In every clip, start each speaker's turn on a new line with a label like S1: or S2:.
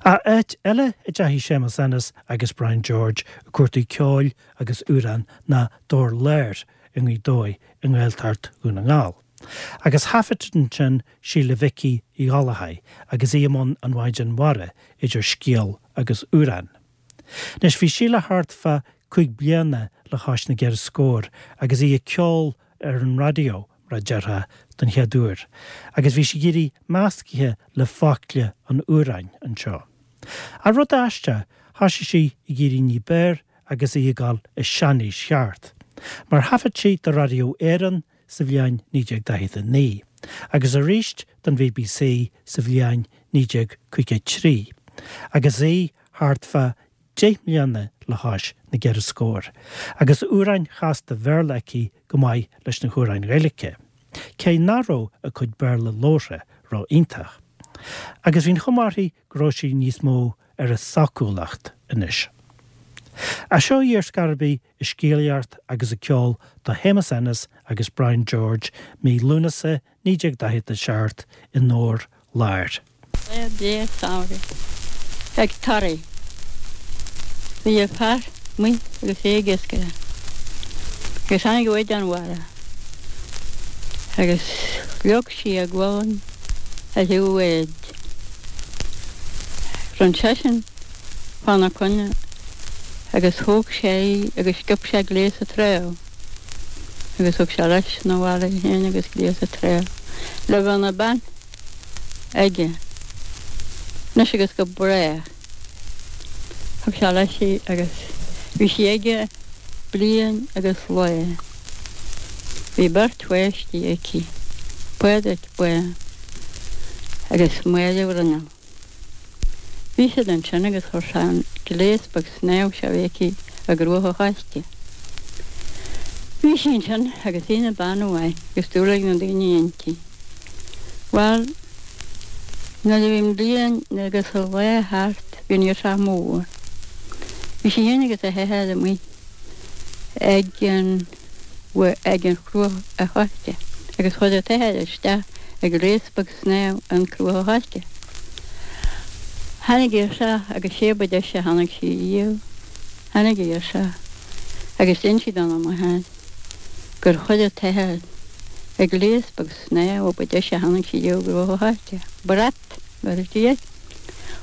S1: Ach áit eile a dteachaigh Séamus Ennis agus Brian George ag cuartú ceoil agus amhrán ná Dobhar Láir i nGaoth Dobhair i nGaeltacht Dhún na nGall. Agus thaifead ansin Síle Mhicí Uí Ghallchóir agus í i mbun an Mhaighdean Mhara idir scéal agus amhrán. Anois bhí Síle thart fá 5 bliana le chois na gceithre scór agus í ag ceol ar an raidió, mar a déarfá, don chéad uair, agus bhí sí ag éirí meascaithe le focla an amhráin anseo. Ach rud aisteach, thoisigh sí ag éirí ní b'fhearr agus í ag dul i seanaois cheart, mar thaifead sí do Raidió Éireann sa bhliain 1949, agus arís don BBC sa bhliain 1953, agus í thart fá dheich mbliana le chois na gceithre scór, agus amhráin chasta Bhéarla aici go maith leis na hamhráin Ghaeilge, cé nach raibh a cuid Béarla labhartha ró-iontach. Agus bhí an chuma uirthi go raibh sí níos mó ar a sócúlacht anois. Ach seo í ar scor ar bith ag scéalaíocht agus ag ceol do Shéamus Ennis agus Brian George mí Lúnasa 1947 i nDobhar Láir.
S2: Lá breá samhraidh ag Toraigh. Bhí a fear amuigh agus é ag iascaireacht agus tháinig an Mhaighdean Mhara agus shlog sí a gualainn ar thaobh an bháid. Rinn seisean fána coinne agus thóg sé í agus sciob sé gléas an treabh agus thug sé leis 'na bhaile í féin agus gléas an treabh le bheith ina bean aige anois agus go brách. Thug sé leis í agus bhí sí aige bliain agus lá. Bhí beirt pháistí aici, Pádraic Bán agus Máire Bhruinneall. Bhí siad ansin agus chuir sé an gléas beag snámha seo a bhí aici i gCruach a' Choiste. Bhí sí ansin agus í ina bean mhaith agus dúil ag na daoine inti. Bhuel, nuair a bhí an bhliain agus a lá thart bhí an ghirseach mór. Bhí sí féin agus a hathair amuigh ag an ag an Chruach a' Choiste agus chuir an t-athair isteach a ghléas beag snámha in Cruach a' Choiste. Tháinig girseach agus sé ba deise a chonaic sí riamh. Tháinig an ghirseach agus d'inis sí dona máthair gur chuir an t-athair a ghléas beag snámha ba deise a chonaic sí riamh i gCruach a' Choiste. Brat, mar a deir.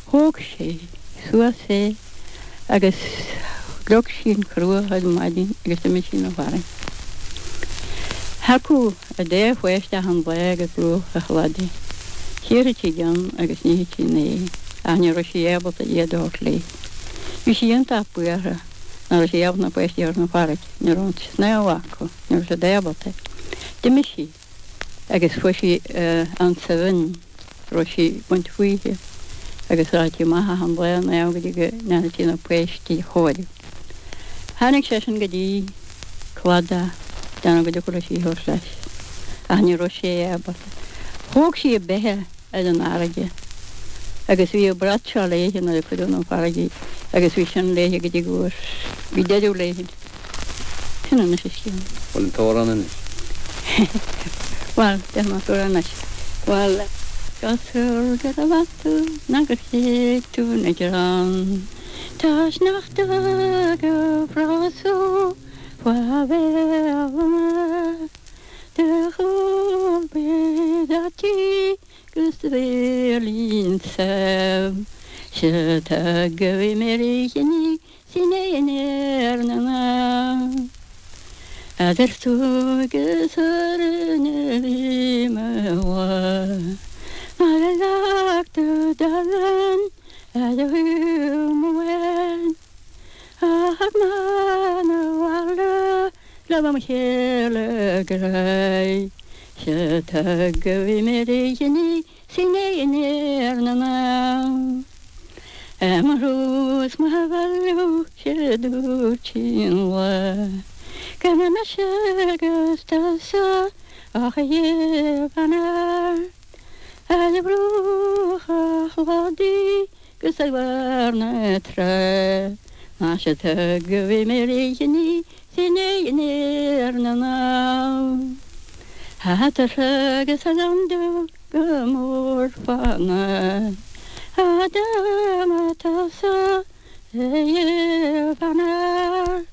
S2: Thóg sí suas é agus shlog sí an chruach ar maidin agus d'imigh sí 'na bhfarraige. Thiocfadh an dá pháiste achan lá go bruach an chladaigh. Chíorfadh sí ceann agus nífeadh sí an é ach ní raibh sí ábalta iad a thabhairt léi. Bhí sí iontach buartha nach raibh sí ábalta na páistí a thabhairt 'na farraige. Ní raibh an snámh acu, ní raibh siad ábalta. D'imigh sí. agus fuair sí ansa bhinn raibh sí ag baint fúithi agus rachadh sí amach achan lá ag snámh go dtí go ndeanfadh sí na páistí a chóiriú. Tháinig seisean go dtí cladach déanamh go dtiocfadh leis í a thabhairt leis ach ní raibh sé ábalta. Thóg sí a beithe ar an fharraige agus bhí an brat seo léithe nuair a cuireadh 'na farraige í agus bhí sin léithe go dtí go bhfuair, bhí deireadh léithe. Sin anois an scéal.
S3: Bhfuil an t-amhrán anois?
S2: Bhuel, déarfaidh mé an t-amhrán anois. Bhuel. Cosúil go raibh tú ná gur thuig tú na greann Tá sneachta go frosú faoi bhéal na Do chúl bid a tí 'gus do bhéilín sam Se tá go bhí mé rí chinní Sin é an fhear na mban. Eadar tú agus orainn a bhí mo bhá. Mar a leag tú do bhean ar do shúil. Ach ná na bhaile le mo chéile grá. Sea tá go bhí mé rí chinní Sin é an fhear na mban. Mo thrua is mo bhailiú sé dúirt sí an lá go mbeidh mise agus tusa ach a gheibh an fhear ar bhruach an chladaigh 'gus ar bharr na trá. Más ea tá go bhí mé rí chinní Sin é an fhear na mban. Eatarthu agus a landú go mór fána. Fhada má tusa fanacht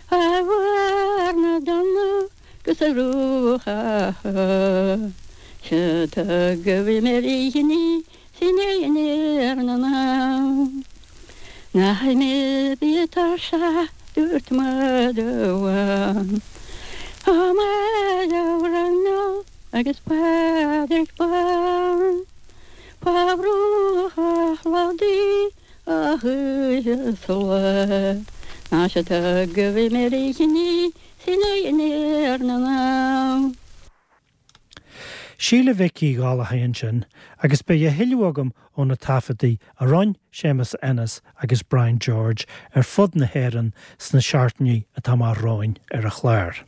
S2: a bharr na dtonnadh 'gus a ruathadh Sea tugadh mé ríghní sin é ar na ndamh Nach mé bí tuirseach dúirt mada amháin Ó mada Raghnall agus Pádraig Bán. Fá bhruacha chladaigh a hoíche 's a lá Ná se tugadh mé ríghní sin é ar na ndamh.
S1: Síle Mhic Uí Ghallchóir ansin agus beidh a thuilleadh agam ó na taifeadtaí a rinne Séamus Ennis agus Brian George ar fud na hÉireann sna seachtainí atá amach romhainn ar an chlár.